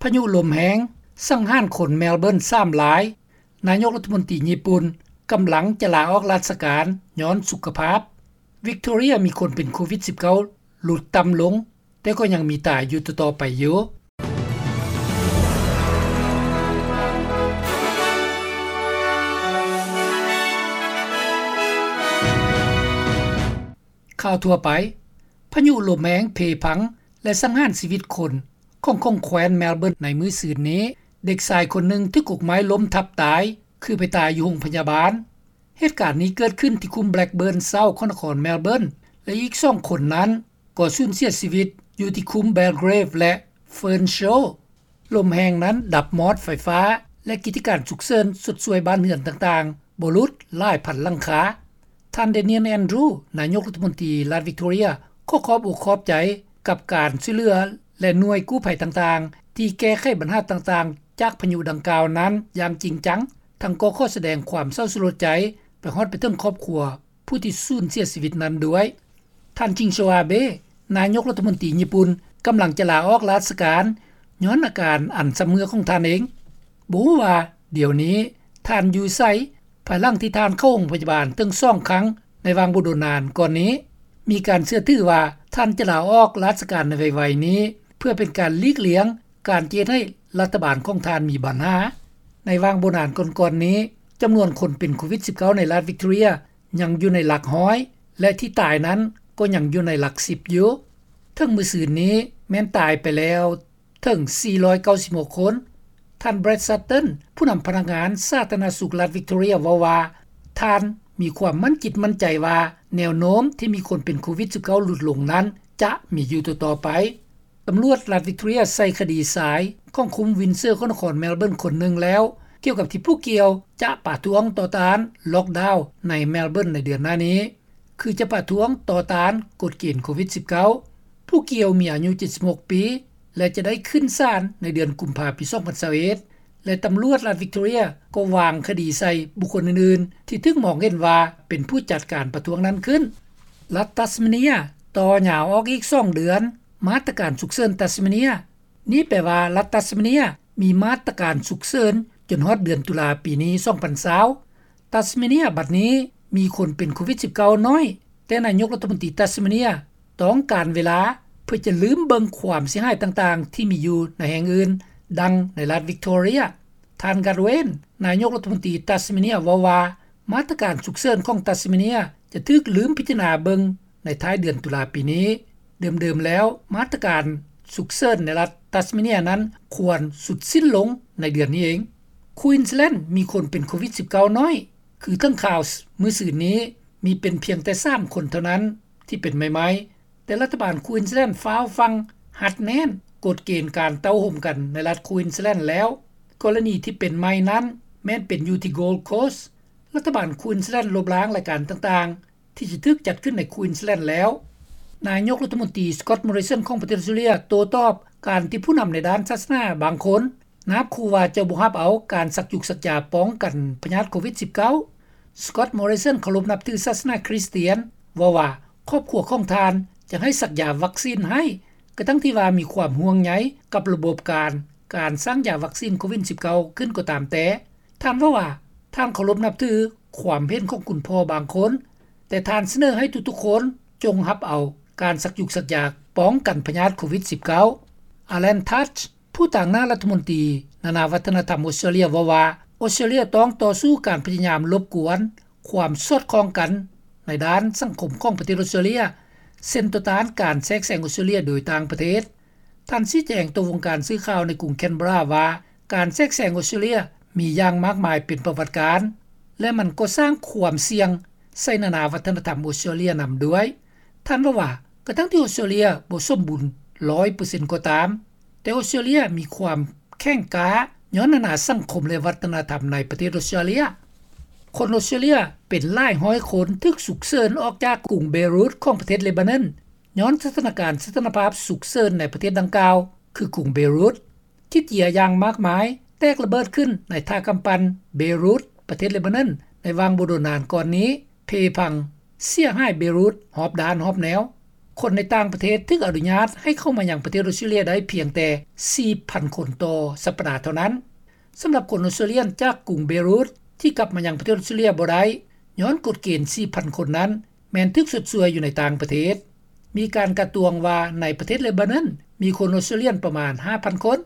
ພະຍຸລົມແຮງສັງຫານຄົນເມລເບີນສາມລາຍ. ນາຍົກລັດຖະມົນຕີຍີ່ປຸ່ນກຳລັງຈະລາອອກລາຊະການຍ້ອນສຸຂະພາບ. ວິກໂຕເຣຍມີຄົນເປັນໂຄວິດສິບເກົ້າຫຼຸດຕ່ຳລົງ, ແຕ່ກໍຍັງມີຕາຍຢູ່ຕໍ່ໆໄປຢູ່. ຂ່າວທົ່ວໄປ. ພະຍຸລົມແຮງເພພັງ ແລະ ສັງຫານຊີວິດຄົນຂອງ ຂອງແຄວ້ນເມລເບີນໃນມື້ຊືນນີ້, ເດັກຊາຍຄົນໜຶ່ງຖືກກົກໄມ້ລົ້ມທັບຕາຍ, ຄືໄປຕາຍຢູ່ໂຮງພະຍາບານ. ເຫດການນີ້ເກີດຂຶ້ນທີ່ຄຸ້ມ Blackburn South ຂອງນະຄອນເມລເບີນ ແລະ ອີກສອງຄົນນັ້ນກໍສູນເສຍຊີວິດຢູ່ທີ່ຄຸ້ມ Belgrave ແລະ Fernshaw. ລົມແຮງນັ້ນດັບມອດໄຟຟ້າ ແລະ ກິດຈະການສຸກເສີນຊົດຊ່ວຍບ້ານເຮືອນຕ່າງໆບໍ່ຫຼຸດຫຼາຍພັນຫຼັງຄາ. ທ່ານ Daniel Andrews ນາຍົກລັດຖະມົນຕີລັດ Victoria ຂໍຂອບອົກຂອບໃຈກັບການຊ່ວຍເຫຼືອ ແລະ ໜ່ວຍກູ້ໄພຕ່າງໆ ທີ່ແກ້ໄຂບັນຫາຕ່າງໆຈາກພະຍຸດັ່ງກ່າວນັ້ນຢ່າງຈິງຈັງ, ທັງກໍຂໍສະແດງຄວາມເສົ້າສະຫຼົດໃຈໄປຮອດໄປເຖິງຄອບຄົວຜູ້ທີ່ສູນເສຍຊີວິດນັ້ນດ້ວຍ. ທ່ານ ຊິງໂຊອາເບ ນາຍົກລັດຖະມົນຕີຍີ່ປຸ່ນ ກຳລັງຈະລາອອກລາຊະການຍ້ອນອາການອັນຊຳເຮື້ອຂອງທ່ານເອງ. ບໍ່ຮູ້ວ່າດຽວນີ້ທ່ານຢູ່ໃສ, ພາຍຫຼັງທີ່ທ່ານເຂົ້າໂຮງພະຍາບານເຖິງສອງຄັ້ງໃນຫວ່າງບໍ່ດົນນານກ່ອນນີ້. ມີການເຊື່ອຖືວ່າທ່ານຈະລາອອກລາຊະການໃນໄວໆນີ້ ເພື່ອເປັນການຫຼີກລ່ຽງການຈະເຮັດໃຫ້ລັດຖະບານຂອງທ່ານມີບັນຫາ. ໃນຫວ່າງບໍ່ນານກ່ອນໆນີ້, ຈຳນວນຄົນເປັນໂຄວິດສິບເກົ້າໃນລັດ Victoria ຍັງຢູ່ໃນຫຼັກຮ້ອຍ ແລະ ທີ່ຕາຍນັ້ນກໍຍັງຢູ່ໃນຫຼັກສິບຢູ່. ເຖິງມື້ຊືນນີ້ແມ່ນຕາຍໄປແລ້ວເຖິງສີ່ຮ້ອຍເກົ້າສິບຫົກຄົນ. ທ່ານ Brad Sutton ຜູ້ນຳພະນັກງານສາທາລະນະສຸກລັດ Victoria ເວົ້າວ່າ ທ່ານມີຄວາມໝັ້ນຈິດໝັ້ນໃຈວ່າ ແນວໂນ້ມທີ່ມີຄົນເປັນໂຄວິດສິບເກົ້າຫຼຸດລົງນັ້ນຈະມີຢູ່ຕໍ່ໆໄປ. ຕຳຫຼວດລັດ Victoria ໃສ່ຄະດີຊາຍຂອງຄຸ້ມ Windsor ຂອງນະຄອນ Melbourne ຄົນໜຶ່ງແລ້ວ ກ່ຽວກັບທີ່ຜູ້ກ່ຽວຈະປະທ້ວງຕໍ່ຕ້ານ lockdown ໃນ Melbourne ໃນເດືອນໜ້ານີ້, ຄືຈະປະທ້ວງຕໍ່ຕ້ານກົດເກນໂຄວິດສິບເກົ້າ. ຜູ້ກ່ຽວມີອາຍຸເຈັດສິບຫົກປີ ແລະ ຈະໄດ້ຂຶ້ນສານໃນເດືອນກຸມພາປີສອງພັນຊາວເອັດ ແລະ ຕຳຫຼວດລັດ Victoria ກໍວາງຄະດີໃສ່ບຸກຄົນອື່ນໆ ທີ່ຖືກມອງເຫັນວ່າເປັນຜູ້ຈັດການປະທ້ວງນັ້ນຂຶ້ນ. ລັດ Tasmania ຕໍ່ຍາວອອກອີກສອງເດືອນ ມາດຕະການສຸກເສີນ Tasmania. ນີ້ແປວ່າລັດ Tasmania ມີມາດຕະການສຸກເສີນຈົນຮອດເດືອນຕຸລາປີນີ້ ສອງພັນຊາວ. Tasmania ບັດນີ້ມີຄົນເປັນໂຄວິດສິບເກົ້າໜ້ອຍ, ແຕ່ນາຍົກລັດຖະມົນຕີ Tasmania ຕ້ອງການເວລາເພື່ອຈະລືມເບິ່ງຄວາມເສຍຫາຍຕ່າງໆທີ່ມີຢູ່ໃນແຫ່ງອື່ນ, ດັ່ງໃນລັດ Victoria. ທ່ານ Gus Gwyn ນາຍົກລັດຖະມົນຕີ Tasmania ເວົ້າວ່າ ມາດຕະການສຸກເສີນຂອງ Tasmania ຈະຖືກລືມພິຈາລະນາເບິ່ງໃນທ້າຍເດືອນຕຸລາປີນີ້. ເດີມໆແລ້ວ ມາດຕະການສຸກເສີນໃນລັດ Tasmania ນັ້ນຄວນສຸດສິ້ນລົງໃນເດືອນນີ້ເອງ. Queensland ມີຄົນເປັນໂຄວິດສິບເກົ້າໜ້ອຍ, ຄືເຖິງຂ່າວມື້ຊືນນີ້ ມີເປັນພຽງແຕ່ສາມຄົນເທົ່ານັ້ນທີ່ເປັນໃໝ່ໆ, ແຕ່ລັດຖະບານ Queensland ຟ້າວຟັ່ງຮັດແໜ້ນກົດເກນການເຕົ້າໂຮມກັນໃນລັດ Queensland ແລ້ວ. ກໍລະນີທີ່ເປັນໃໝ່ນັ້ນແມ່ນເປັນຢູ່ທີ່ Gold Coast. ລັດຖະບານ Queensland ລົບລ້າງລາຍການຕ່າງໆ ທີ່ຈະຖືກຈັດຂຶ້ນໃນ Queensland ແລ້ວ. ນາຍົກລັດຖະມົນຕີ Scott Morrison ຂອງປະເທດອອສເຕຣເລັຽ ໂຕ້ຕອບການທີ່ຜູ້ນຳໃນດ້ານສາສະໜາບາງຄົນ ນາບຂູ່ວ່າຈະບໍ່ຮັບເອົາການສັກຢູກສັກຢາປ້ອງກັນພະຍາດໂຄວິດສິບເກົ້າ. Scott Morrison ເຄົາລົບນັບຖືສາສະໜາຄຣິສຕຽນ ເວົ້າວ່າຄອບຄົວຂອງທ່ານຈະໃຫ້ສັກຢາວັກຊີນໃຫ້, ກະທັ່ງທີ່ວ່າມີຄວາມຫ່ວງໃຍກັບລະບົບການ, ການສ້າງຢາວັກຊີນໂຄວິດສິບເກົ້າຂຶ້ນກໍຕາມແຕ່. ທ່ານເວົ້າວ່າ ທ່ານເຄົາລົບນັບຖືຄວາມເຫັນຂອງຄຸນພໍ່ບາງຄົນ, ແຕ່ທ່ານສະເໜີໃຫ້ທຸກໆຄົນຈົ່ງຮັບເອົາການສັກຢູກສັກຢາປ້ອງກັນພະຍາດໂຄວິດສິບເກົ້າ. Alan Tudge ຜູ້ຕາງໜ້າລັດຖະມົນຕີນານາວັດທະນະທຳອອສເຕຣເລັຽເວົ້າວ່າ ອອສເຕຣເລັຽຕ້ອງຕໍ່ສູ້ການພະຍາຍາມລົບກວນຄວາມສອດຄ່ອງກັນໃນດ້ານສັງຄົມຂອງປະເທດອອສເຕຣເລັຽ, ເຊັ່ນ ຕໍ່ຕ້ານການແຊກແຊງອອສເຕຣເລັຽໂດຍຕ່າງປະເທດ. ທ່ານຊີ້ແຈງຕໍ່ວົງການສື່ຂ່າວໃນກຸງ Canberra ວ່າ ການແຊກແຊງອອສເຕຣເລັຽມີຢ່າງມາກມາຍເປັນປະຫວັດການ ແລະ ມັນກໍສ້າງຄວາມສ່ຽງໃສ່ນານາວັດທະນະທຳອອສເຕຣເລັຽນຳດ້ວຍ. ທ່ານເວົ້າວ່າ ກະທັ່ງທີ່ອອສເຕຣເລັຽບໍ່ສົມບູນຮ້ອຍເປີເຊັນກໍຕາມ, ແຕ່ອອສເຕຣເລັຽມີຄວາມແຂງກ້າຍ້ອນນານາສັງຄົມ ແລະ ວັດທະນະທຳໃນປະເທດອອສເຕຣເລັຽ. ຄົນອອສເຕຣເລັຽເປັນຫຼາຍຮ້ອຍຄົນຖືກສຸກເສີນອອກຈາກກຸງເບຣູດຂອງປະເທດເລບານອນ ຍ້ອນສະຖານະການສະຖານະພາບສຸກເສີນໃນປະເທດດັ່ງກ່າວ ຄືກຸງເບຣູດ. ຂີ້ເຈຍຢ່າງມາກມາຍແຕກລະເບີດຂຶ້ນໃນທ່າກຳປັ່ນເບຣູດ ປະເທດເລບານອນ ໃນຫວ່າງບໍ່ດົນນານກ່ອນນີ້ ເພພັງເສຍຫາຍເບຣູດຮອບດ້ານຮອບແນວ. ຄົນໃນຕ່າງປະເທດຖືກອະນຸຍາດໃຫ້ເຂົ້າມາຍັງປະເທດອອສເຕຣເລັຽໄດ້ພຽງແຕ່ ສີ່ພັນຄົນຕໍ່ສັປດາເທົ່ານັ້ນ. ສຳລັບຄົນອອສເຕຣເລັຽຈາກກຸງເບຣຸດທີ່ກັບມາຍັງປະເທດອອສເຕຣເລັຽບໍ່ໄດ້ຍ້ອນກົດເກນ ສີ່ພັນຄົນນັ້ນ ແມ່ນຖືກຊົດຊ່ວຍຢູ່ໃນຕ່າງປະເທດ. ມີການການຕວງວ່າໃນປະເທດເລບານອນມີຄົນອອສເຕຣເລັຽປະມານ ຫ້າພັນຄົນ